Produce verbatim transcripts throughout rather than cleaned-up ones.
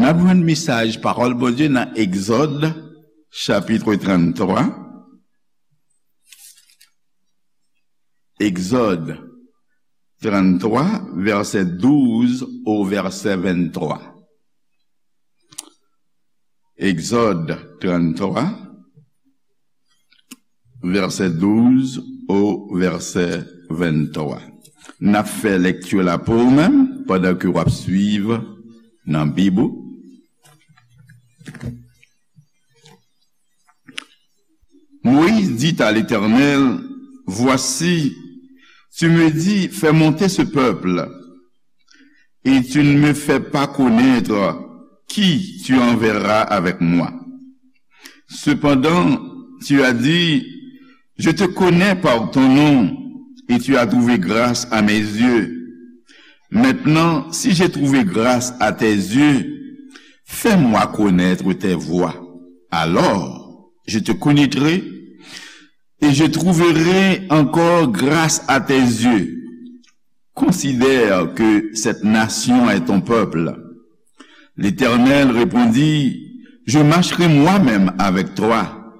N ap jwenn mesaj pawòl Bondye nan Egzòd, chapit tranntrwa. Egzòd tranntrwa, vèsè douz o vèsè venntwa. Egzòd tranntrwa, vèsè douz o vèsè venntwa. N ap fè lekti la pou ou menm, pandan ke w ap swiv nan Bib ou. Moïse dit à l'Éternel, Voici, tu me dis, fais monter ce peuple, et tu ne me fais pas connaître qui tu enverras avec moi. Cependant, tu as dit, Je te connais par ton nom, et tu as trouvé grâce à mes yeux. Maintenant, si j'ai trouvé grâce à tes yeux, fais-moi connaître tes voies. Alors, je te connaîtrai et je trouverai encore grâce à tes yeux. Considère que cette nation est ton peuple. L'Éternel répondit, Je marcherai moi-même avec toi,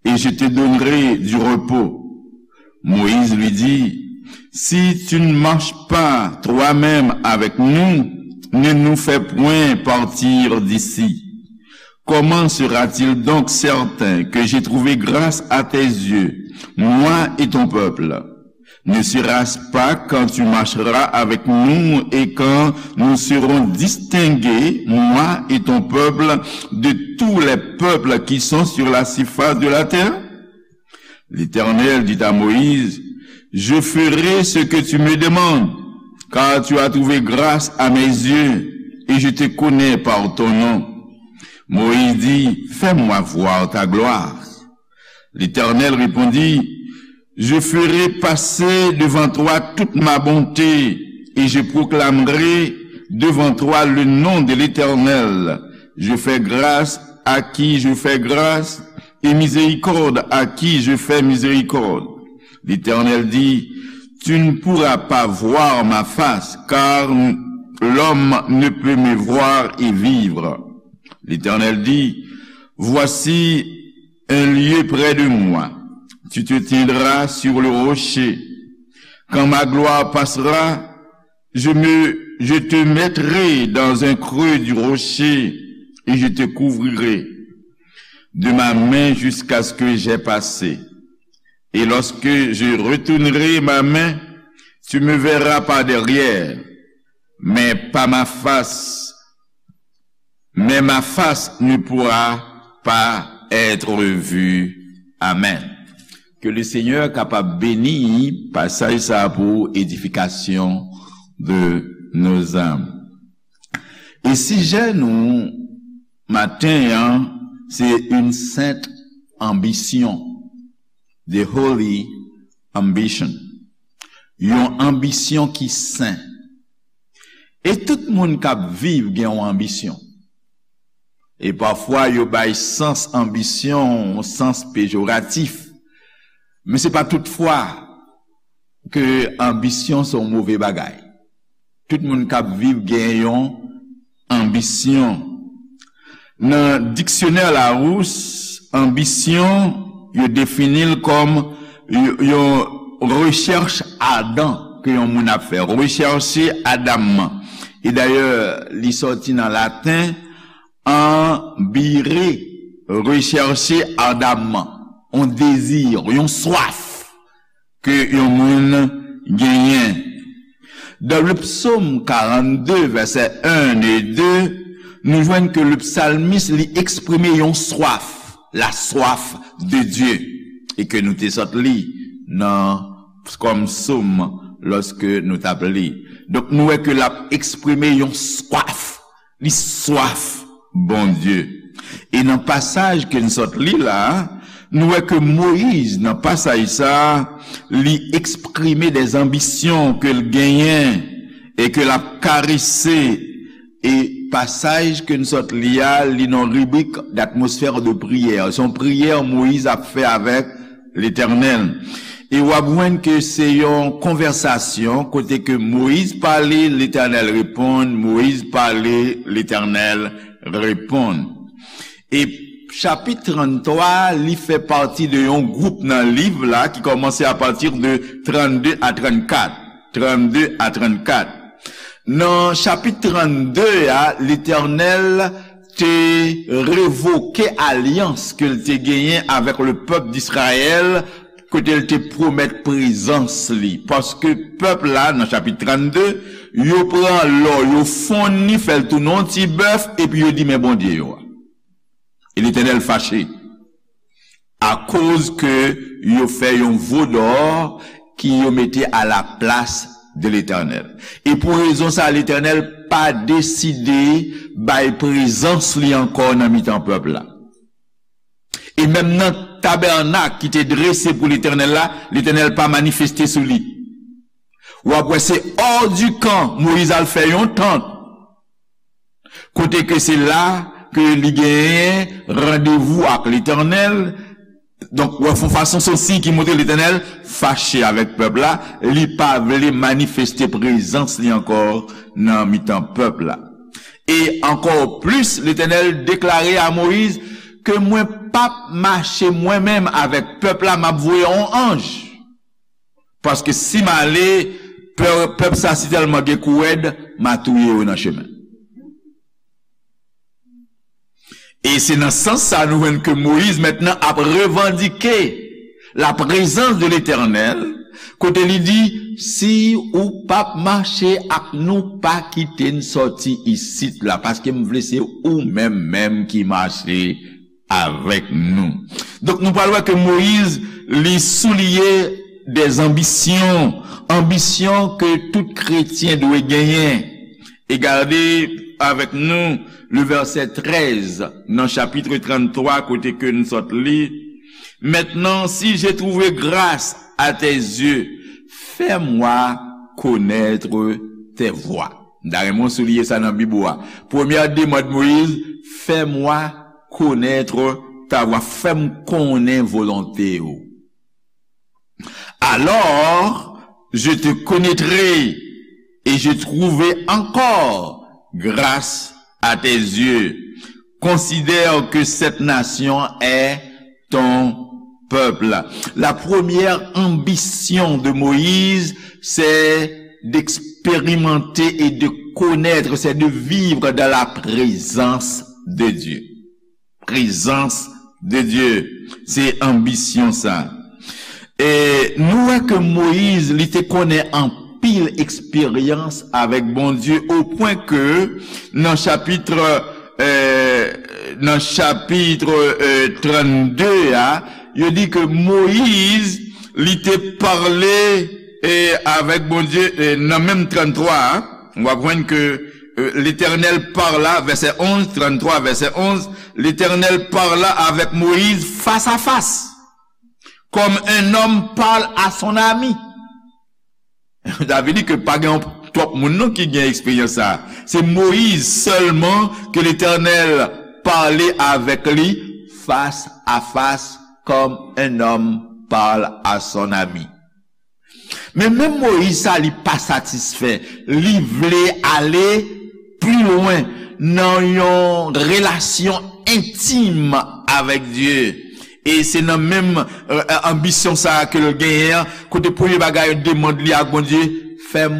et je te donnerai du repos. Moïse lui dit, Si tu ne marches pas toi-même avec nous, ne nous fais point partir d'ici. Comment sera-t-il donc certain que j'ai trouvé grâce à tes yeux, moi et ton peuple? Ne sera-ce pas quand tu marcheras avec nous et quand nous serons distingués, moi et ton peuple, de tous les peuples qui sont sur la surface de la terre? L'Éternel dit à Moïse, Je ferai ce que tu me demandes, car tu as trouvé grâce à mes yeux, et je te connais par ton nom. Moïse dit, Fais-moi voir ta gloire. L'Éternel répondit, Je ferai passer devant toi toute ma bonté, et je proclamerai devant toi le nom de l'Éternel. Je fais grâce à qui je fais grâce, et miséricorde à qui je fais miséricorde. L'Éternel dit, Tu ne pourras pas voir ma face, car l'homme ne peut me voir et vivre. L'Éternel dit, Voici un lieu près de moi. Tu te tiendras sur le rocher. Quand ma gloire passera, je me, je te mettrai dans un creux du rocher et je te couvrirai de ma main jusqu'à ce que j'ai passé. Et lorsque je retournerai ma main, tu me verras par derrière, mais pas ma face, mais ma face ne pourra pas être vue. Amen. Ke le Senyè kapab beni pasaj sa a pou edifikasyon de nos âmes. E sijè nou maten an, se une sainte ambition, the holy ambition. Yon anbisyon ki sen. E tout moun k ap viv gen yon anbisyon. E pafwa yo bay sans anbisyon yon sans pejoratif. Men se pa tout fwa ke anbisyon se yon move bagay. Tout moun k ap viv gen yon anbisyon. Nan diksyonè Larousse, anbisyon, yo defini l kòm y-, yon rechèch adan ke yon moun ap fè, rechèche adamman. E dayè, li sòti nan laten, ambire, rechèche adamman, yon dezi, yon swaf ke yon moun genyen. Dans le psaume quarante-deux, versets un et deux, nou jwenn ke le psalmiste li eksprime yon swaf, la soif de Dieu, e ke nou te sot li nan kòm sòm lòske nou t ap li. Donk, nou wè ke l ap eksprime yon swaf. Li swaf Bondye. E nan pasaj ke n sot li la, nou wè ke Moyiz, nan pasaj sa a, li eksprime de anbisyon ke l genyen e ke l ap karese. E pasaj ke n sot li a, li nan ribrik d'atmosphère de prière. Se yon priyè Moyiz ap fè avèk Letènèl. E w ap jwenn ke se yon konvèsasyon kote ke Moyiz pale, Letènèl reponn, Moyiz pale, Letènèl reponn. E chapit tranntwa, li fè pati de yon gwoup nan liv la ki kòmanse apati de trannde a trannkat. Trannde a trannkat. Nan chapit trannde a, Letènèl te revoke alyans ke l te genyen avèk le pèp d'Israyèl, kote l te pwomèt prezans li. Paske pèp la, nan chapit trannde, yo pran lò, yo fonn li, fè l tounen yon ti bèf, epi yo di, "Men Bondye yo a." E Letènèl fache. Akoz ke yo fè yon vodò ki yo mete a la plas de Letènèl. E pou rezon sa, Letènèl pa deside bay prezans li ankò nan mitan pèp la. E menm nan tabènak ki te drese pou Letènèl la, Letènèl pa manifeste sou li. W ap wè se hors du camp, Moyiz al fè yon tant. Kote ke se la ke li genyen randevou ak Letènèl. Donk, w ap fè yon fason, se yon siy ki montre Letènèl fache avèk pèp la, li pa vle manifeste prezans li ankò nan mitan pèp la. E ankò plis, Letènèl deklare a Moyiz ke mwen p ap mache mwen menm avèk pèp la, m ap voye yon anj. Paske si m ale, pè-, pèp sa si tèlman gen kou rèd, m a touye yo nan chemen. E se nan sans sa nou jwenn ke Moyiz mentnan ap revandike la prezans de Letènèl, kote li di, "Si ou p ap mache ak nou, pa kite n sòti isit la, paske m vle se ou menm menm ki mache avèk nou." Donk, nou pral wè ke Moyiz, li souliye des ambitions, anbisyon ke tout kretyen dwe genyen. E gade avèk nou le vèsè trèz nan chapit tranntwa kote ke n sot li. Maintenant, si j'ai trouvé grâce à tes yeux, fais-moi connaître tes voies. M ta renmen w souliye sa nan Bib ou a. Premyè demann Moyiz, fais-moi connaître ta voix, fè m konnen volonte w. Alors, je te connaîtrai et je trouverai encore grâce à tes yeux. Considère que cette nation est ton peuple. La première ambition de Moïse, c'est d'expérimenter et de connaître, c'est de vivre dans la présence de Dieu. Prezans de Dye. Se anbisyon sa. E nou wè ke Moyiz, li te konnen anpil eksperyans avèk Bondye, o pwen ke nan chapit, e, nan chapit, e, trannde a, yo di ke Moyiz, li te pale, e, avèk Bondye, e, nan menm tranntwa a, w ap jwenn ke, e, Letènèl parla, vèsè onz, tranntwa, vèsè onz, Letènèl parla avèk Moyiz fas a fas, comme un homme parle à son ami. Sa vle di ke pa gen twòp moun non ki gen eksperyans sa. Se Moyiz sèlman ke Letènèl pale avèk li fas a fas, comme un homme parle à son ami. Men menm Moyiz sa, li pa satisfè. Li vle ale pli lwen nan yon relasyon entim avèk Dye. E se nan menm, e, anbisyon sa a ke l genyen an, kote premye bagay, demann li ak Bondye, fè m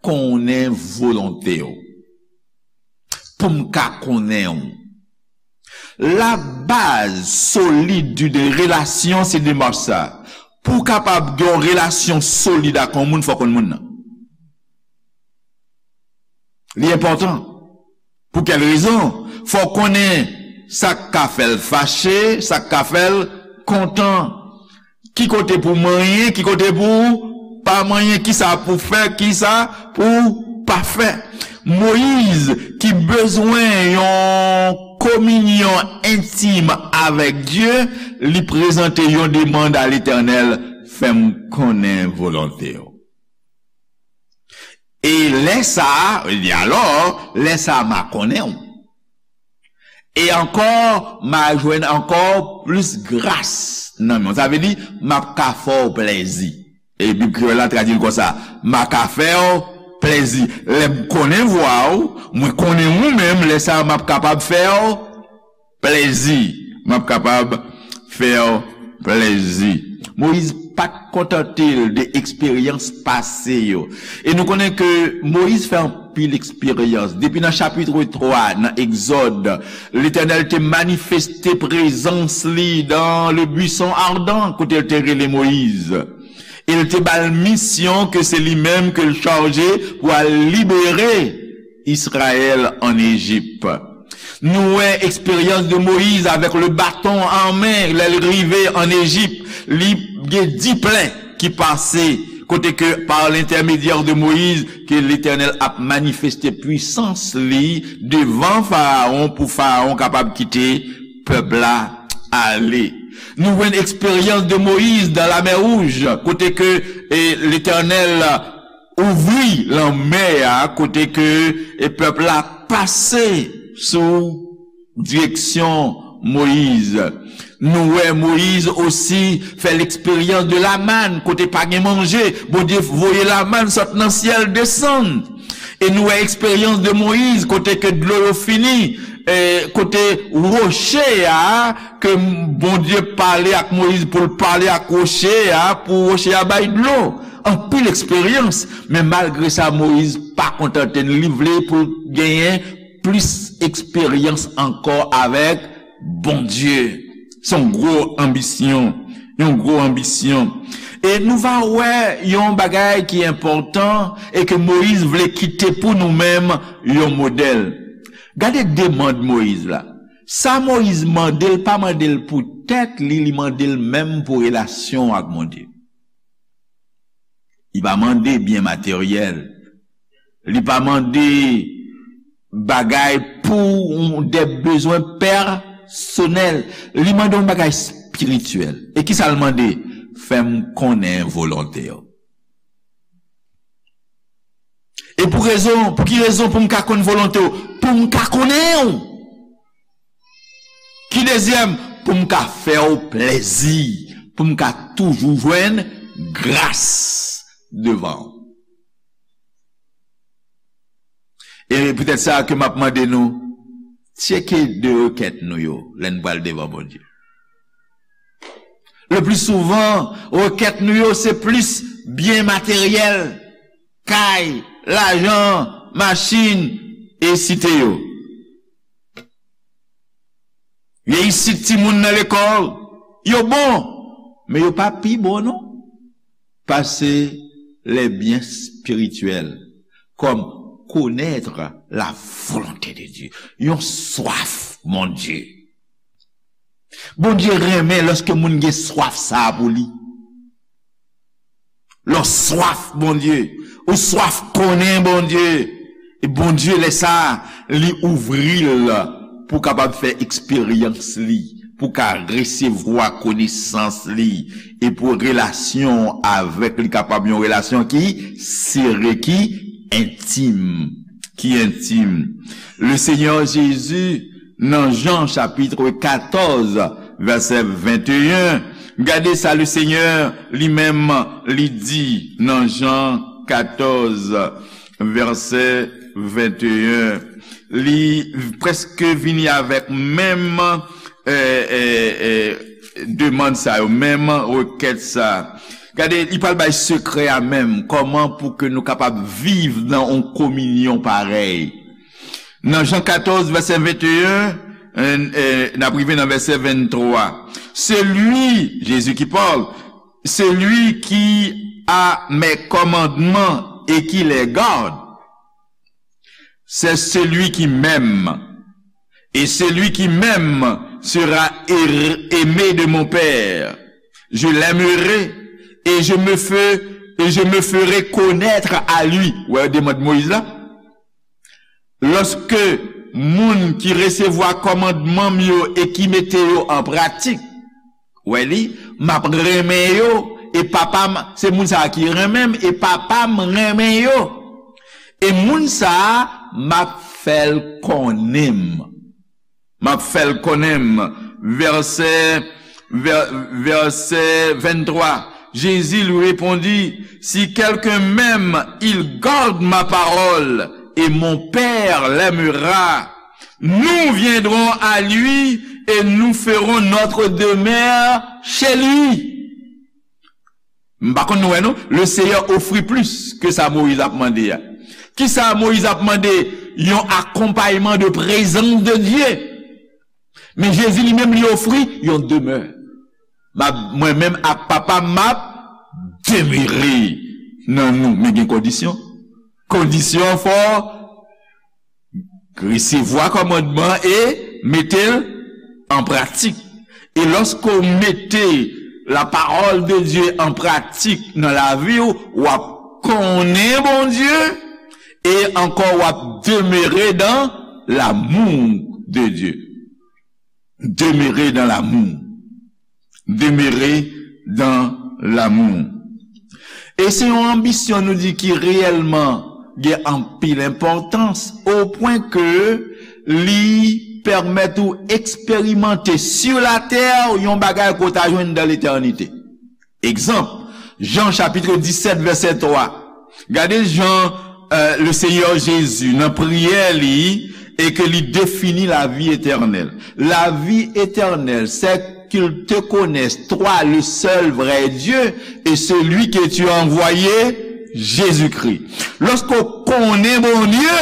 konnen volonte w. Pou m ka konnen w. Labaz solid d'une relation, se demach sa. Pou w kapab gen yon relasyon solid ak yon moun, fò w konn moun nan. Li enpòtan. Pou kèl rezon? Fò w konnen sa k ka fè l fache, sa k ka fè l kontan. Ki kote pou w manyen, ki kote pou w pa manyen, ki sa pou w fè, ki sa pou w pa fè. Moyiz, ki bezwen yon kominyon entim avèk Dye, li prezante yon demann a Letènèl, fè m konnen volonte w. E lè sa a, li di, alò, lè sa a, m a konnen w. E ankò, m a jwenn ankò plis gras nan men w. Sa vle di, m ap ka fè w plèzi. E Bib Kreyòl la tradui l konsa, m a ka fè w plèzi. Lè m konnen vwa w, mwen konnen ou menm, lè sa a m ap kapab fè w plèzi. M ap kapab fè w plèzi. Moyiz pa t kontante l de eksperyans pase yo. E nou konnen ke Moyiz fè anpil eksperyans. Depi nan chapit twa nan Egzòd, Letènèl te manifeste prezans li dans le buisson ardent, kote l te rele Moyiz. E l te ba l misyon ke se li menm ke l chaje pou al libere Izrayèl ann Ejip. Nou wè eksperyans de Moyiz avèk le baton an men, lè l rive ann Ejip, li gen dis plè ki pase, kote ke par l'intermédiaire de Moïse ke Letènèl ap manifeste pwisans li devan Farawon pou Farawon kapab kite pèp la ale. Nou jwenn eksperyans de Moyiz dan lamè wouj, kote ke e, Letènèl ouvri lanmè a, kote ke e, pèp la pase sou direksyon Moyiz. Nou wè Moyiz osi fè leksperyans de lamàn, kote pa gen manje, Bondye voye lamàn sot nan syèl desann. E nou wè eksperyans de Moyiz, kote ke dlo yo fini, e, kote woche a, ke Bondye pale ak Moyiz pou l pale ak woche a, pou woche a bay dlo. Anpil eksperyans, men malgre sa, Moyiz pa kontante l, li vle pou l genyen plis eksperyans ankò avèk Bondye. Se yon gwo anbisyon, yon gwo anbisyon. E nou va wè yon bagay ki enpòtan e ke Moyiz vle kite pou nou menm yon modèl. Gade demann Moyiz la. Sa Moyiz mande, l pa mande l pou tèt li, li mande l menm pou relasyon ak Bondye. Li pa mande byen materyèl. Li pa mande bagay pou de bezwen pèsonèl. Li mande yon bagay espirityèl. E kisa l mande? Fè m konnen volonte w. E pou rezon, pou ki rezon pou m ka konn volonte w? Pou m ka konnen w. Ki dezyèm? Pou m ka fè w plèzi, pou m ka toujou jwenn gras devan w. E poutèt sa ke m ap mande nou, tcheke de rekèt nou yo lè n pral devan Bondye. Le pli souvan, rekèt nou yo se plis byen materyèl, kay, lajan, machin, e site yo. Reyisit timoun nan lekòl, yo bon, men yo pa pi bon non. Pase les biens spirituels, comme connaître la volonté de Dieu. Yon swaf Bondye. Bondye renmen lòske moun gen swaf sa a pou li. Lè w swaf Bondye, ou swaf konnen Bondye, e Bondye lè sa a, li ouvri l pou w kapab fè eksperyans li, pou w ka resevwa konesans li, e pou relasyon w avèk li kapab yon relasyon ki sere, ki entim, ki entim. Le Seigneur Jésus nan Jan chapit katòz, vèsè venteyen. Gade sa Lesenyè li menm li di nan Jan katòz, vèsè venteyen. Li prèske vini avèk menm, e, e, e, demann sa yo, menm rekèt sa. Gade, li pral bay sekrè a menm, kòman pou ke nou kapab viv nan yon kominyon parèy. Nan Jan katòz, vèsè venteyen, e, e, n ap rive nan vèsè venntwa. Celui, Jésus qui parle, celui qui a mes commandements et qui les garde, c'est celui qui m'aime. Et celui qui m'aime sera aimé de mon Père. Je l'aimerai et je me fais, et je me ferai connaître à lui. Wè, demann Moyiz la. Lòske moun ki resevwa kòmandman m yo e ki mete yo an pratik, wè li, m ap renmen yo, e Papa m, se moun sa a ki renmen m, e Papa m renmen yo. E moun sa a, m ap fè l konnen m. M ap fè l konnen m. Vèsè, vè-, vèsè venntwa. Jésus lui répondit, si quelqu'un m'aime, il garde ma parole, et mon Père l'aimera. Nous viendrons à lui et nous ferons notre demeure chez lui. M pa konn nou wè non, le Seigneur ofri plis ke sa Moyiz ap mande a. Kisa Moyiz ap mande? Yon akonpayman de prezans de Dye. Men Jezi li menm li ofri yon demè. M ap, mwen menm ak Papa m ap demere nan nou. Men gen kondisyon. Kondisyon fò resevwa kòmandman e mete l an pratik. E lòske w mete la parole de Dieu an pratik nan lavi w, w ap konnen Bondye e ankò w ap demere dans l'amour de Dieu. Demere dans l'amour. Demere dans l'amour. E se yon anbisyon nou di ki reyèlman gen anpil enpòtans, o pwen ke li pèmèt ou eksperimante sur la terre yon bagay ke w ta jwenn dans l'éternité. Egzanp, Jan chapit disèt vèsè twa. Gade jan, euh, le Seigneur Jésus nan priyè li e ke li defini la vie éternelle. La vie éternelle, c'est qu'ils te connaissent, toi, le seul vrai Dieu, et celui que tu as envoyé, Jésus-Christ. Lòske w konnen Bondye,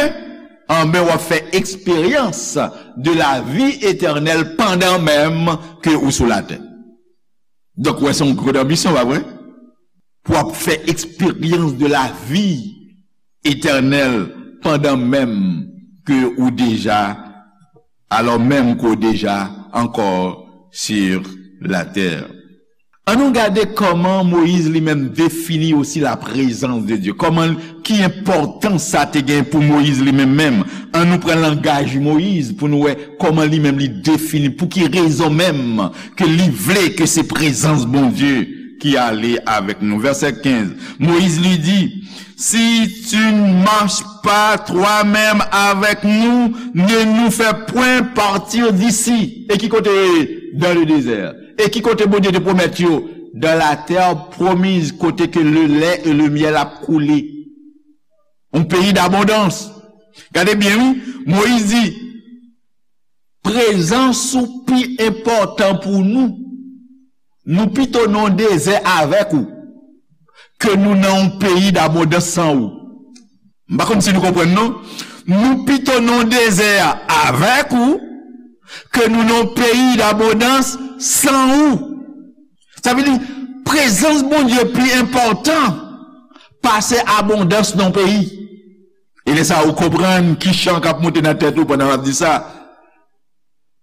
anben w ap fè eksperyans de la vie éternelle pandan menm ke ou sou latè. Donk, wè, se yon gwo anbisyon, pa vre? Pou w ap fè eksperyans de la vie éternelle pandan menm ke ou deja, alò menm ke w deja ankò sur la terre. Ann nou gade kòman Moyiz li menm defini osi la prezans de Dye. Kòman, ki enpòtans sa te gen pou Moyiz li menm menm. Ann nou pran langaj Moyiz pou nou wè kòman li menm li defini, pou ki rezon menm ke li vle ke se prezans Bondye ki ale avèk nou. Vèsè kenz, Moïse lui dit, si tu ne marches pas toi-même avec nous, ne nous fais point partir d'ici. E ki kote? Dans le désert. E ki kote Bondye te pwomèt yo? Dans la terre promise, kote ke le lait et le miel ap koule. Un pays d'abondance. Gade byen, wi. Moyiz di, prezans ou pi enpòtan pou nou. Nou pito nan yon dezè avèk ou ke nou nan yon peyi dabondans san ou. M pa konn si nou konprann, non. Nou pito nan yon dezè avèk ou ke nou nan yon peyi dabondans san ou. Sa vle di, prezans Bondye pi enpòtan pase abondans nan yon peyi. E lè sa a, ou konprann ki chan k ap monte nan tèt ou pandan w ap di sa.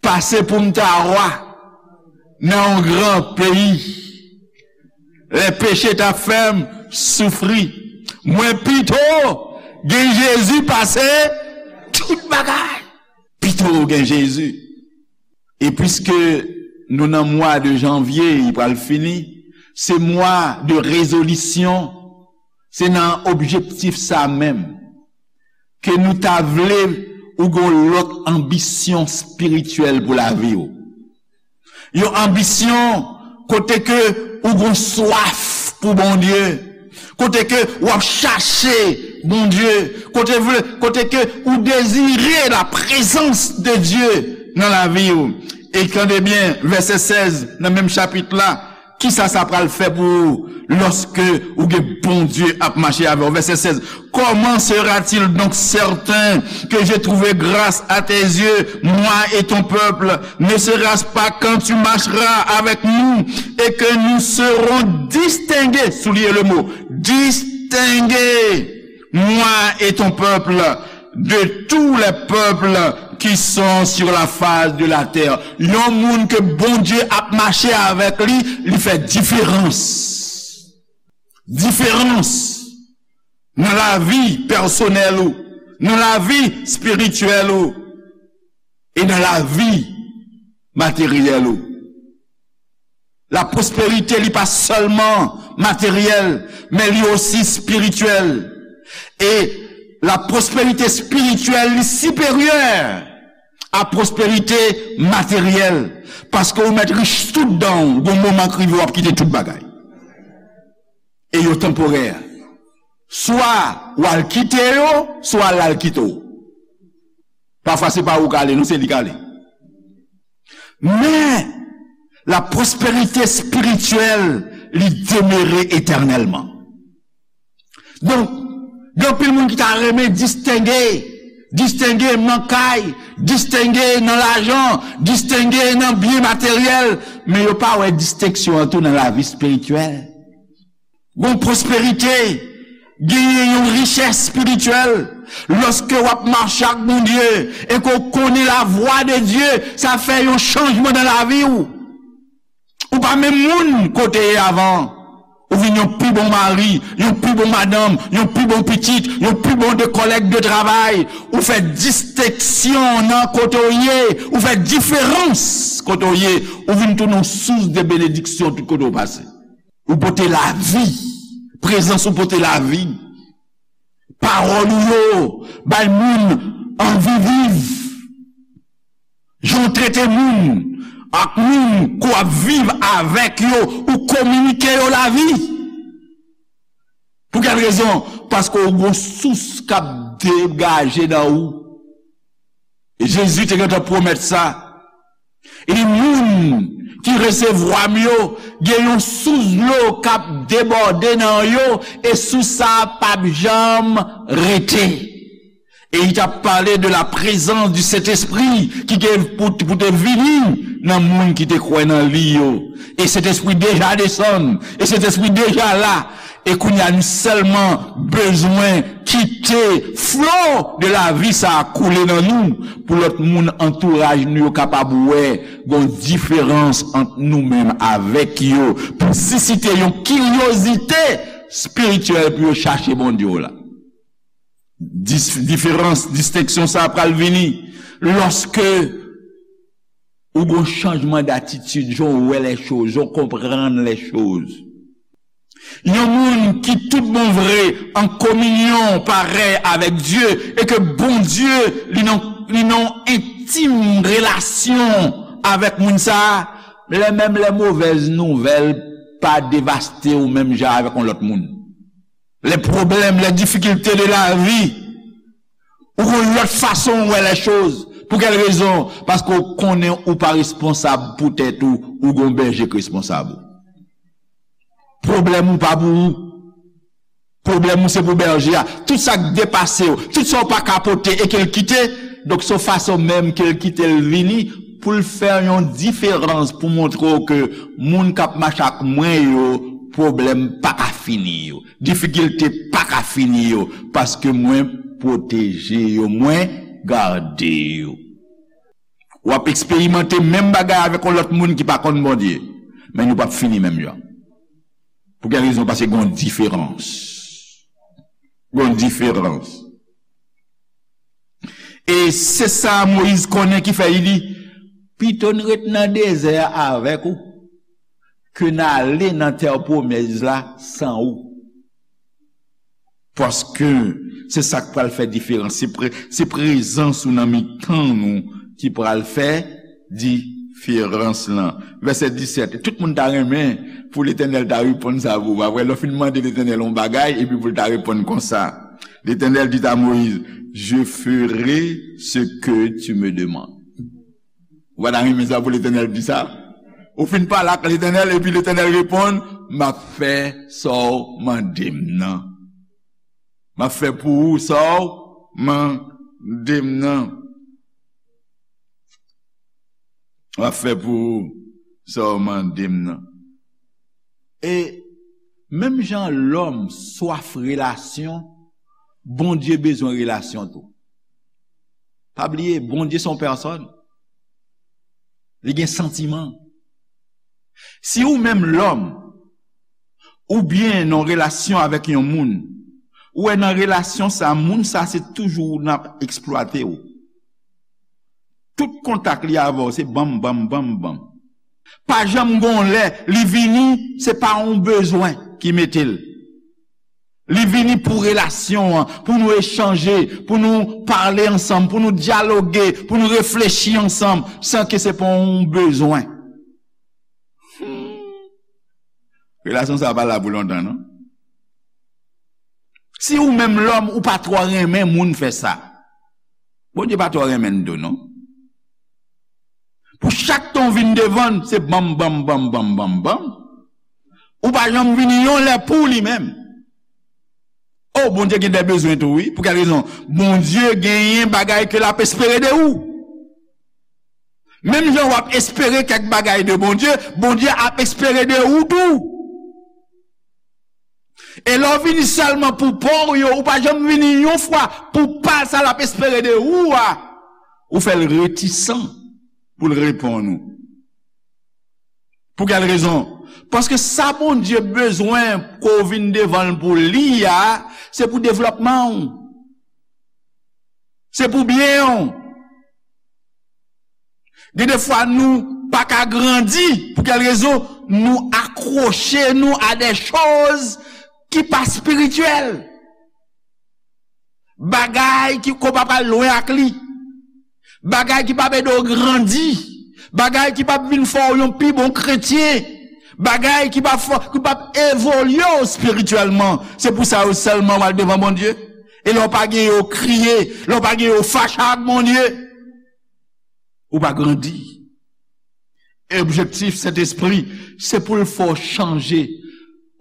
Pase pou m ta wa nan yon gran peyi, lè peche t ap fè m soufri. Mwen pito gen Jezi pase tout bagay. Pito gen Jezi. E piske nou nan mwa de janvye, li pral fini, se mwa de rezolisyon, se nan objektif sa menm ke nou ta vle ou gon lòt anbisyon espirityèl pou lavi w. Yon anbisyon kote ke ou gon swaf pou Bondye, kote ke w ap chache Bondye, kote vle, kote ke ou dezire la prezans de Dye nan lavi w. E tande byen, vèsè sèz nan menm chapit la, kisa sa pral fè pou ou lòske ou gen Bondye ap mache avè w? Vèsè sèz, comment sera-t-il donc certain que j'ai trouvé grâce à tes yeux, moi et ton peuple? Ne sera-ce pas quand tu marcheras avec nous et que nous serons distingués, soulignez le mot, distingués, moi et ton peuple, de tous les peuples qui sont sur la face de la terre. Yon moun ke Bondye ap mache avèk li, li fè diferans. Diferans nan lavi pèsonèl ou, nan lavi espirityèl ou, e nan lavi materyèl ou. La pwosperite, li pa sèlman materyèl, men li osi espirityèl. E la pwosperite espirityèl, li siperyè a pwosperite materyèl, paske ou mèt rich tout dan w, gon moman k rive w ap kite tout bagay. E yo tanporè. Swa w al kite yo, swa l al kite w. Pafwa se pa ou k ale, non, se li k ale. Men, la pwosperite espirityèl, li demere etènèlman. Donk, gen anpil moun ki ta renmen distenge, distenge nan kay, distenge nan lajan, distenge nan byen materyèl, men yo pa wè distenksyon an tou nan lavi espirityèl. Gon pwosperite, genyen yon richès espirityèl. Lòske w ap mache ak Bondye e ke w konnen lavwa de Dye, sa fè yon chanjman nan lavi w. Ou pa menm moun ke w te ye avan. Ou vin yon pi bon mari, yon pi bon madanm, yon pi bon pitit, yon pi bon de kòlèg de travay. Ou fè distenksyon nan kote w ye. Ou fè diferans kote w ye. Ou vin tounen yon sous de benediksyon tout kote w pase. Ou pote lavi. Prezans ou pote lavi. Pawòl ou yo bay moun anvi viv. Jan w trete moun ak moun ke w ap viv avèk yo, ou kominike yo lavi. Pou kèl rezon? Paske w gon sous k ap degaje nan ou. Jezi te gentan pwomèt sa. Li di, moun ki resevwa m yo, gen yon sous dlo k ap debòde nan yo, e sous sa a p ap janm rete. E li t ap pale de la prezans di Sentespri ki gen pou, pou te vini nan moun ki te kwè nan li yo. E Sentespri deja desann, e Sentespri deja la. E kounye a, nou sèlman bezwen kite flo de lavi sa a koule nan nou, pou lòt moun antouraj nou yo kapab wè gon diferans ant nou menm avèk yo, pou sisite yon kiryozite espirityèl pou yo chache Bondye w la. Dis-, diferans, distenksyon sa a pral vini lòske ou gon chanjman datitid, jan w wè lèchoz, jan w konprann lèchoz. Yon moun ki tout bon vre an kominyon parèy avèk Dye e ke Bondye li nan, li nan entim relasyon avèk moun sa a, lè menm lè movèz nouvèl pa devaste w menm jan avèk yon lòt moun. Lè pwoblèm, lè difikilte de lavi, ou gon lòt fason w wè lèchoz. Pou kèl rezon? Paske w konnen ou pa responsab pou tèt ou, ou gon bèje k responsab ou. Pwoblèm ou pa pou ou. Pwoblèm ou se pou bèje a. Tout sa k depase w, tout sa w pa ka pote e ke l kite, donk se yon fason menm ke l kite l vini pou l fè yon diferans, pou montre w ke moun k ap mache ak mwen yo, pwoblèm pa ka fini yo. Difikilte pa ka fini yo, paske mwen pwoteje yo, mwen gade yo. W ap eksperimante menm bagay avèk yon lòt moun ki pa konn Bondye, men nou p ap fini menm jan. Pou kèl rezon? Paske gen yon diferans. Gen yon diferans. E se sa Moyiz konnen ki fè li di, pito n ret nan dezè a avèk ou, ke n ale nan tè pwomèz la san ou. Paske se sa k pral fè diferans. Se pre-, se prezans ou nan mitan nou ki pral fè diferans lan. Vèsè disèt. Tout moun ta renmen pou Letènèl ta reponn sa pou ou. Apre, lè w fin mande Letènèl yon bagay, epi pou l ta reponn konsa. L'Éternel dit à Moïse, je ferai ce que tu me demandes. Ou pa ta renmen sa pou Letènèl di sa? Ou fin pale ak Letènèl, epi Letènèl reponn, m ap fè sa w mande m nan. M ap fè pou ou sa w mande m nan. M ap fè pou ou sa w mande m nan. E menm jan lòm swaf relasyon, Bondye bezwen relasyon tou. Pa bliye, Bondye se yon pèsòn. Li gen santiman. Si ou menm lòm, oubyen nan relasyon avèk yon moun, ou wè nan relasyon sa, moun sa se toujou nan ap eksplwate w. Tout kontak li avè w, se banm, banm, banm, banm. Pa janm gon lè, li vini, se pa yon bezwen ki mete l. Li vini pou relasyon an, pou nou echanje, pou nou pale ansanm, pou nou dyaloge, pou nou reflechi ansanm, san ke se pa yon bezwen. Hmm. Relasyon sa a pa la pou lontan, non. Si ou menm lòm, ou pa twò renmen moun fè sa, Bondye pa twò renmen n tou, non. Pou chak tan w vin devan l, se banm, banm, banm, banm, banm, banm. Ou pa janm vini yon lè pou li menm. O, Bondye gen de bezwen tou, wi. Pou kèl rezon? Bondye genyen bagay ke l ap espere de ou. Menm jan w ap espere kèk bagay de Bondye, Bondye ap espere de ou tou. E lè w vini sèlman pou pa w yo, ou pa janm vini yon fwa pou pa l, sa l ap espere de ou a, ou fè l retisan pou l reponn ou. Pou kèl rezon? Paske sa Bondye bezwen ke w vin devan l pou li a, se pou devlòpman w. Se pou byen w. Gen de fwa nou pa ka grandi. Pou kèl rezon? Nou akwoche nou a de choz ki pa espirityèl. Bagay ki, ke w pa pral lwen ak li. Bagay ki p ap ede w grandi. Bagay ki p ap vin fè w yon pi bon kretyen. Bagay ki p ap fè, ki p ap evolye w espirityèlman. Se pou sa yo sèlman w al devan Bondye. E lè w pa gen yo, w kriye. Lè w pa gen yo, w fache ak Bondye. Ou pa grandi. E objektif Sentespri, se pou l fè w chanje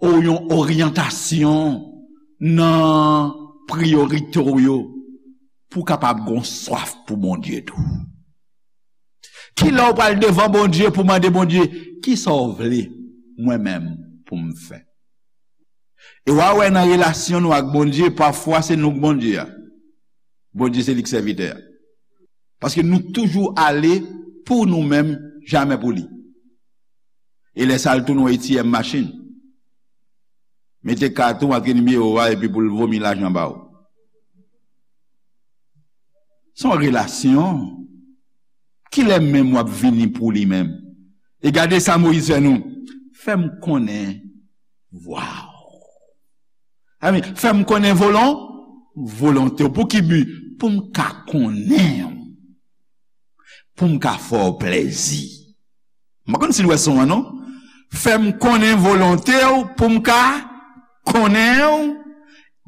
ou yon oryantasyon nan priyorite w yo, pou w kapab gon swaf pou Bondye tou. Ki lè w pral devan Bondye pou mande Bondye, "Ki sa w vle mwen menm pou m fè?" E w a wè nan relasyon nou ak Bondye, pafwa se nou k Bondye a. Bondye se li k sèvitè a. Paske nou toujou ale pou nou menm, jamè pou li. E lè sa l tounen yon A T M machin. Mete kat ou, antre nimewo a, epi pou l vomi lajan ba w. Se yon relasyon. Kilè menm w ap vini pou li menm? E gade sa Moyiz fè nou. Fè m konnen vwa w. Amen. Fè m konnen volon, volonte w. Pou ki bi? Pou m ka konnen w. Pou m ka fè w plèzi. M pa konn si n wè son an, non. Fè m konnen volonte w pou m ka konnen w,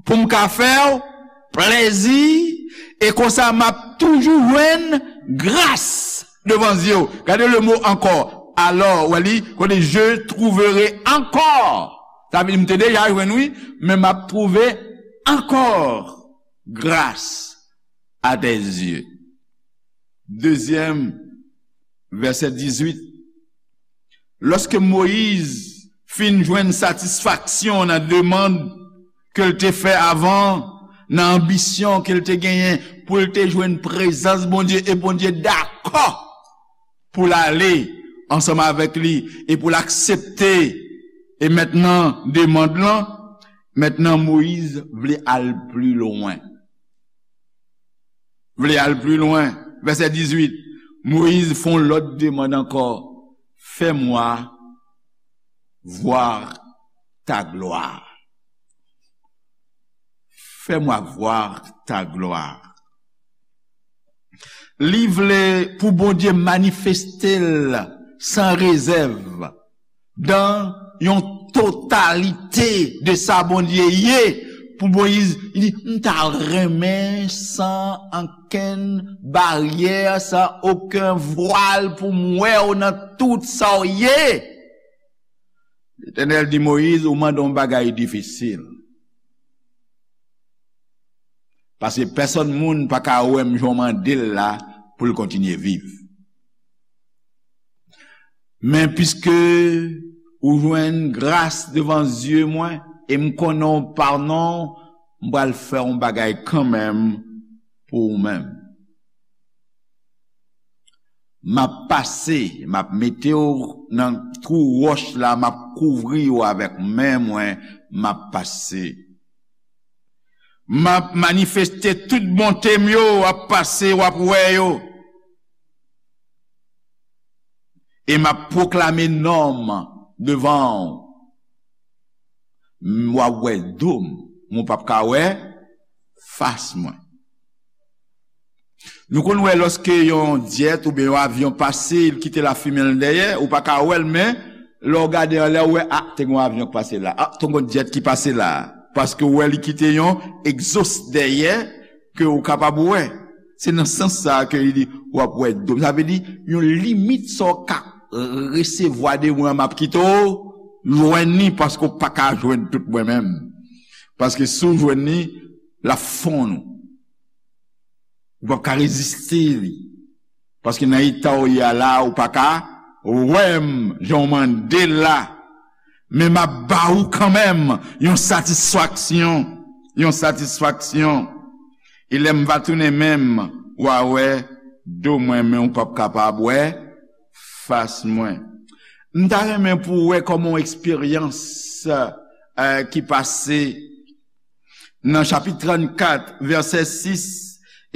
pou m ka fè w plèzi, e konsa m ap toujou jwenn gras devan zye w. Gade le mo ankò. Alò, w wè li, kote je trouverai encore. Sa vle di m te deja jwenn, wi, men m ap twouve ankò gras à tes yeux. Dezyèm, vèsè dizuit. Lòske Moyiz fin jwenn satisfaksyon nan demann ke l te fè avan, nan anbisyon ke l te genyen pou l te jwenn prezans Bondye, e Bondye dakò pou l ale ansanm avèk li e pou l aksepte, e mentnan demann lan, mentnan Moyiz vle al pli lwen. Vle al pli lwen. Vèsè dizuit, Moyiz fè yon lòt demann ankò. Fais-moi voir ta gloire. Fais-moi voir ta gloire. Li vle pou Bondye manifeste l san rezèv, dan yon totalite de sa Bondye ye. Pou Moyiz, li di, "M ta renmen san ankenn baryè, san okenn vwal pou m wè w nan tout sa w ye." Letènèl di Moyiz, "Ou mande yon bagay difisil. Paske pèsonn moun pa ka wè m jan w mande l la pou l kontinye viv. Men piske ou jwenn gras devan zye mwen, e m konnen w pa non, m pral fè yon bagay kanmenm pou ou menm. M ap pase, m ap mete w nan twou wòch la, m ap kouvri w avèk men mwen, m ap pase. M ap manifeste tout bonte m yo, w ap pase, w ap wè yo. E m ap pwoklame non m devan w. M, w ap wè do m, men w p ap ka wè fas mwen. Nou konn wè lòske yon jet oubyen yon avyon pase, li kite lafimen l dèyè, ou pa ka wè l, men lè w gade anlè, ou wè, a, te gen yon avyon k pase la, a, te gen yon jet ki pase la, paske w wè li kite yon egzos dèyè ke ou kapab wè. Se nan sans sa a ke li di, w ap wè do m. Sa vle di, yon limit sa w ka resevwa de mwen, m ap kite w jwenn li, paske w pa ka jwenn tout mwen menm. Paske si w jwenn li, l ap fonn ou. Ou p ap ka reziste li. Paske nan eta w ye a la, ou pa ka wè m jan w mande l la. Men m ap ba ou kanmenm yon satisfaksyon, yon satisfaksyon. E lè m va tounen menm, w a wè do mwen, men w p ap kapab wè fas mwen. M ta renmen pou w wè kòman yon eksperyans, eh, ki pase nan chapit trannkat, vèsè sis,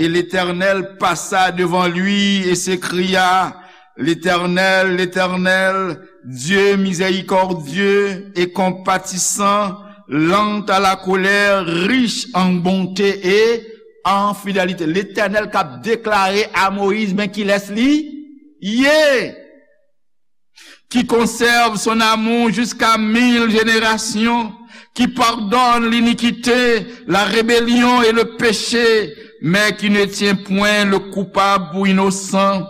et l'Éternel passa devant lui et s'écria, L'Éternel, l'Éternel, Dieu miséricordieux et compatissant, lent à la colère, riche en bonté et en fidélité. Letènèl k ap deklare a Moyiz, men kilès li ye. Qui conserve son amour jusqu'à mille générations, qui pardonne l'iniquité, la rébellion et le péché, mais qui ne tient point le coupable pour innocent,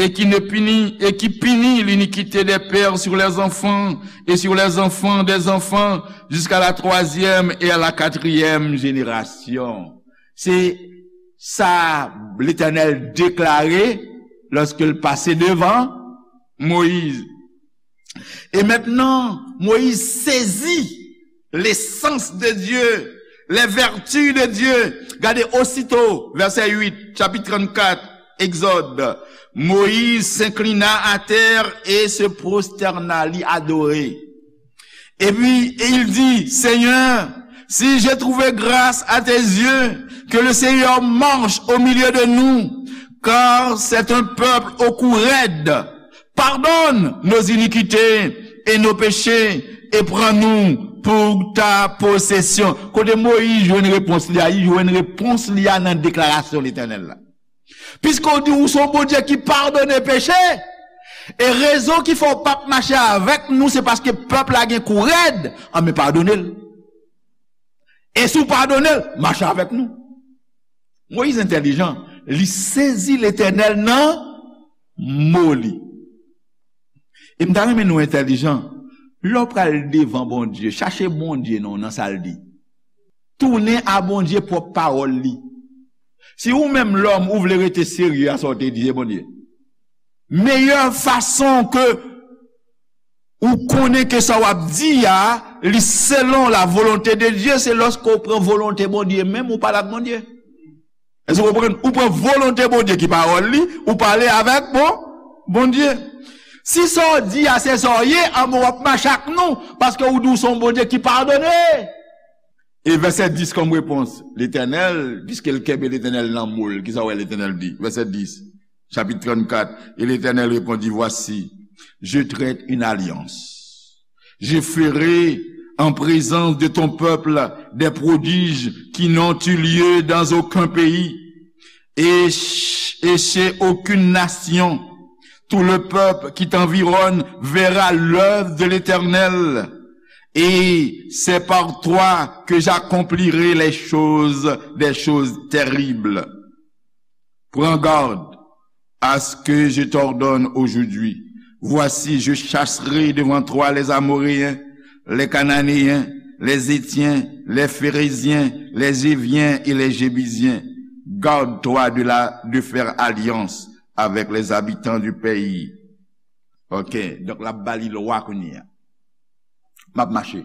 et qui ne punit, et qui punit l'iniquité des pères sur les enfants, et sur les enfants des enfants, jusqu'à la troisième et à la quatrième génération. Se sa Letènèl deklare lòske l pase devan Moyiz. E mentnan, Moyiz sezi lesans de Dye, les vertus de Dieu. Gade, osito, vèsè uit, chapit trannkat, Egzòd. Moïse s'inclina à terre et se prosterna, li adore. Et puis, et il dit, Seigneur, si j'ai trouvé grâce à tes yeux, que le Seigneur marche au milieu de nous, car c'est un peuple au cou raide. Pardonne nos iniquités et nos péchés, et prends-nous pour ta possession. Kote Moyiz jwenn repons li a? Li jwenn repons li a nan deklarasyon Letènèl la. Piske w di w se yon Bondye ki padone peche, e rezon ki fè w p ap mache avèk nou, se paske pèp la gen kou rèd, anben padone l. E si w padone l, mache avèk nou. Moyiz entèlijan, li sezi Letènèl nan mo li. E m ta renmen nou entèlijan. Lè w pral devan Bondye, chache Bondye non nan sa l di. Tounen a Bondye pwòp pawòl li. Si ou menm lòm ou vle rete serye a sa w te di, se Bondye. Meyè fason ke ou konnen ke sa w ap di a, li selon la volonte de Dye, se lòske w pran volonte Bondye menm, ou pale ak Bondye. Èske w konprann? Ou pran volonte Bondye ki pawòl li, ou pale avèk bon, Bondye. Si sa w di a se sa w ye, anben w ap mache ak nou, paske ou di w se yon Bondye ki padone. E vèsè dis kòm repons, Letènèl, piske l kenbe Letènèl nan mo l, kisa w wè Letènèl di? Vèsè dis, chapit trannkat, et l'Éternel répondit, Voici, je traite une alliance. Je ferai en présence de ton peuple des prodiges qui n'ont eu lieu dans aucun pays, et, ch- et chez aucune nation. Tout le peuple qui t'environne verra l'œuvre de l'Éternel, et c'est par toi que j'accomplirai les choses, des choses terribles. Prends garde à ce que je t'ordonne aujourd'hui. Voici, je chasserai devant toi les Amoréens, les Cananéens, les Héthiens, les Phéréziens, les Hiviens et les Jébusiens. Garde-toi de la, de faire alliance avec les habitants du pays. Ok, donk l ap ba li lwa kounye a. M ap mache.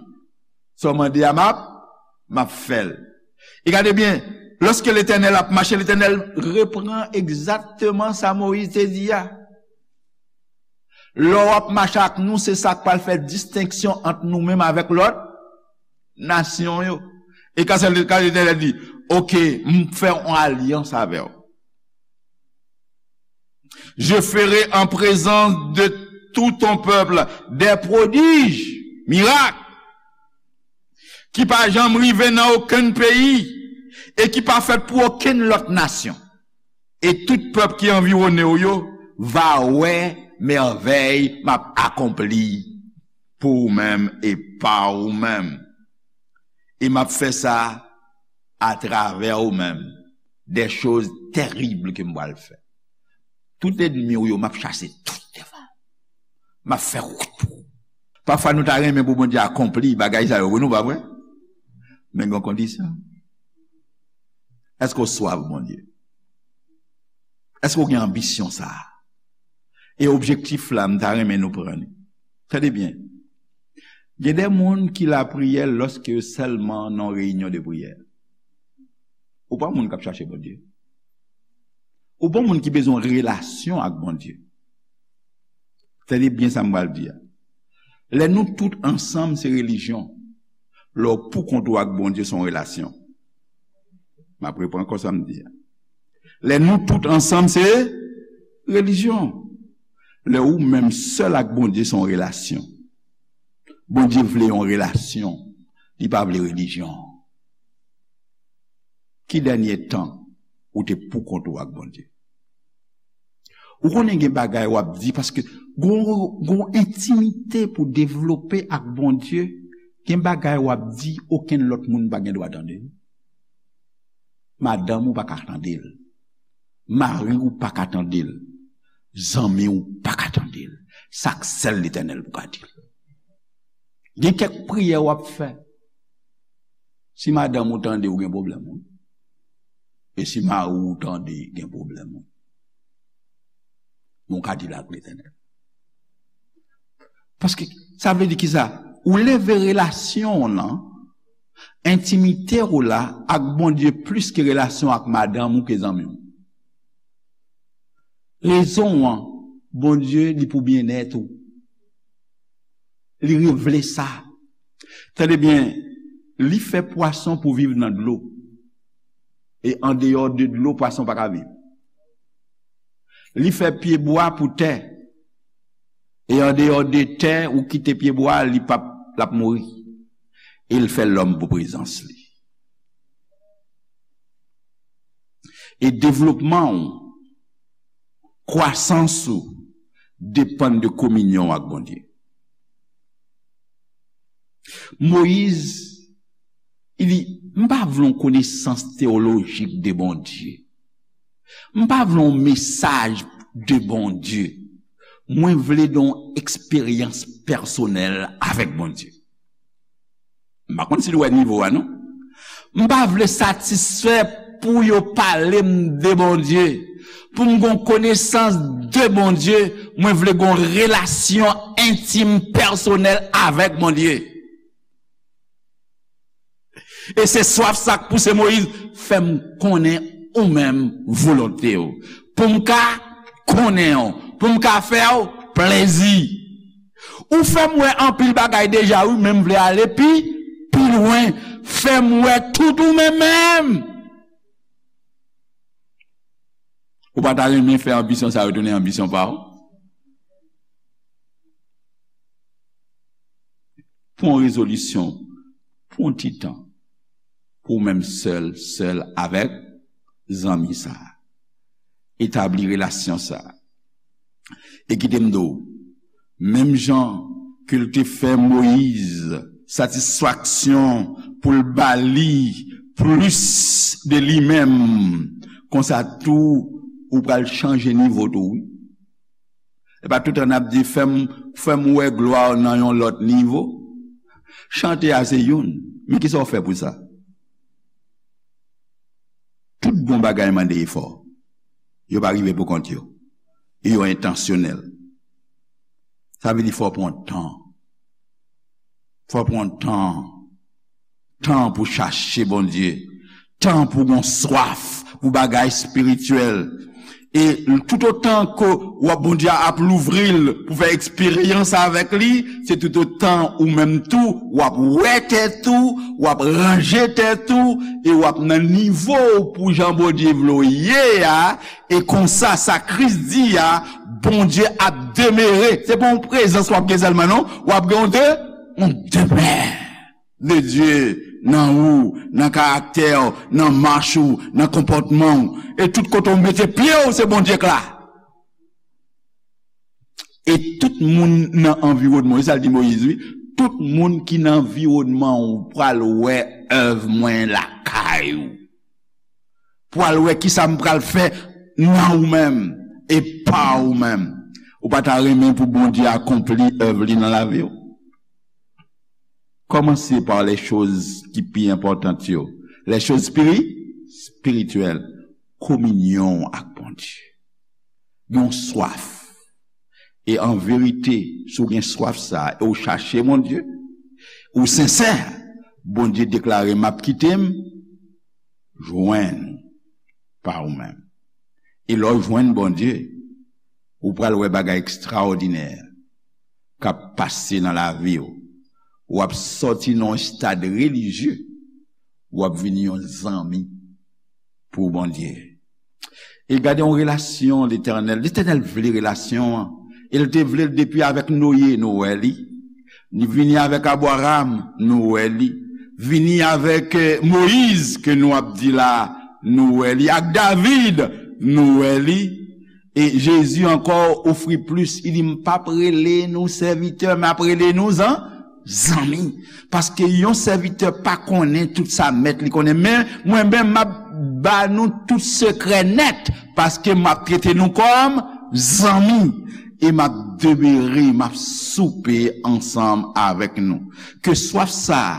Sa w mande a, m ap, m ap fè l. E gade byen, lòske Letènèl ap mache, Letènèl repran egzakteman sa Moyiz te di a. Lè w ap mache ak nou, se sa k pral fè distenksyon ant nou menm avèk lòt nasyon yo. E ka sa, ka Letènèl di, oke, m fè yon alyans avè w. Je ferai en présence de tout ton peuple des prodiges, miracles, ki pa janm rive nan okenn peyi e ki pa fèt pou okenn lòt nasyon. E tout pèp ki anviwone w yo va wè mèvèy m ap akonpli pou ou menm e pa ou menm. E m ap fè sa atravè ou menm, des choses terribles ke m pral fè. Tout ènmi w yo, m ap chase tout devan. M ap fè wout pou ou. Pafwa nou ta renmen pou Bondye akonpli bagay sa yo, wi, nou pa vre? Men gen yon kondisyon. Èske w swaf Bondye? Èske w gen anbisyon sa a? E objektif la, m ta renmen nou pran li. Tande byen. Gen de moun ki lapriyè lòske yo sèlman nan yon reyinyon de priyè. Ou pa moun k ap chache Bondye. Ou pa moun ki bezwen relasyon ak Bondye. Tande byen sa m pral di a. Lè nou tout ansanm se relijyon. Lè w pou kont ou ak Bondye se yon relasyon. M ap reprann ankò sa m di a. Lè nou tout ansanm se relijyon. Lè ou menm sèl ak Bondye se yon relasyon. Bondye vle yon relasyon. Li pa vle relijyon. Ki dènye tan ou te pou kont ou ak Bondye? Ou konnen gen bagay w ap di, paske gon, gon entimite pou devlope ak Bondye, gen bagay w ap di, okenn lòt moun pa gen dwa tande l. Madanm ou pa ka tande l. Mari w pa ka tande l. Zanmi w pa ka tande l. Sa k sèl Letènèl pou ka di l. Gen kèk priyè w ap fè. Si madanm ou tande, ou gen pwoblèm, wi. E si mari w tande, gen pwoblèm, wi. Men w ka di l ak Letènèl. Paske sa vle di kisa? Ou leve relasyon w lan, entimite w la ak Bondye plis ke relasyon ak madanm ou, ke zanmi w. Rezon an, Bondye li pou byennèt ou. Li revle sa. Tande byen, li fè pwason pou viv nan dlo. E andeyò de dlo, pwason pa ka viv. Li fè pyebwa pou tè. E andeyò de tè, ou kite pyebwa, li p ap, l ap mouri. E l fè lòm pou prezans li. E devlopman w, kwasans ou, depann de kominyon w ak Bondye. Moyiz, li di, m pa vle yon konesans teyolojik de Bondye. M pa vle yon mesaj de Bondye. Mwen vle gen yon eksperyans pèsonèl avèk Bondye. M pa konn si nou wè nivo a, non. M pa vle satisfè pou yo pale m de Bondye. Pou m gen yon konesans de Bondye, mwen vle gen yon relasyon entim, pèsonèl avèk Bondye. E se swaf sa k pouse Moyiz, fè m konnen ou menm volonte w. Pou m ka konnen w, pou m ka fè w plezi. Ou fè m wè anpil bagay deja, wi, men m vle ale pi, pi lwen. Fè m wè tout ou menm menm. Ou pa ta renmen fè anbisyon sa yo tounen anbisyon pa w? Pran yon rezolisyon pou yon ti tan, pou w menm sèl, sèl avèk zanmi sa a. Etabli relasyon sa a. E kite m di w, menm jan ke l te fè Moyiz satisfaksyon pou l ba li plis de li menm, konsa tou ou pral chanje nivo tou, wi. E pa toutan n ap di, fè m, fè m wè glwa w nan yon lòt nivo. Chante a se youn, men kisa w fè pou sa? Tout bon bagay mande efò. Yo pa rive pou kont yo. E yo entansyonèl. Sa vle di fò w pran tan. Fò w pran tan. Tan pou chache Bondye. Tan pou gon swaf pou bagay espirityèl. E toutotan ke w ap, Bondye ap louvri l pou fè eksperyans avèk li, se toutotan ou menm tou, w ap wè tèt ou, w ap ranje tèt ou, e w ap nan nivo w pou jan Bondye vle w ye a, e konsa sa Kris di a, Bondye ap demere. Se pa yon prezans w ap gen sèlman, non, w ap gen yon de, yon demè. de Dye nan ou, nan karaktè w, nan mach ou, nan konpòtman w. E tout kote w mete pye w, se Bondye k la. E tout moun nan anviwònman w, e sa l di Moyiz, wi, tout moun ki nan anviwònman w pral wè èv mwen lakay ou. Pral wè kisa m pral fè nan ou menm e pa ou menm. Ou pa ta renmen pou Bondye akonpli èv li nan lavi w? Kòmanse pa lè choz ki pi enpòtan yo. Lè choz spiri, spirityèl. Kominyon ak Bondye. Yon swaf. E an verite, si w gen swaf sa a, e w chache Bondye, ou sensè, Bondye deklare, "M ap kite m jwenn pa ou menm." E lè w jwenn Bondye, ou pral wè bagay ekstraòdinè k ap pase nan lavi w. W ap sòti nan yon estad relijye, w ap vin yon zanmi pou Bondye. E gade yon relasyon Letènèl. Letènèl vle relasyon an. E l te vle l depi avèk Noye, nou wè li. Li vini avèk Abraram, nou wè li. Vini avèk, eh, Moyiz, ke nou ap di la, nou wè li. Ak David, nou wè li. E Jezi ankò ofri plis. Li di, "M p ap rele nou sèvitè, m ap rele nou zan-, zanmi." Paske yon sèvitè pa konnen tout sa mèt li konnen. Men, mwen menm, m ap ba nou tout sekrè nèt. Paske m ap trete nou kòm zanmi. E m ap demere, m ap soupe ansanm avèk nou. Ke swaf sa a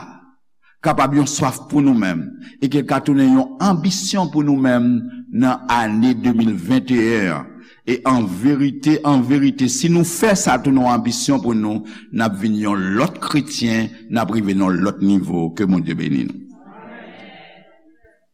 kapab yon swaf pou nou menm, e ke l ka tounen yon anbisyon pou nou menm nan ane de mil venteyen an. E an verite, an verite, si nou fè sa tounen yon anbisyon pou nou, n ap vin yon lòt kretyen, n ap rive nan yon lòt nivo. Ke Bondye beni nou.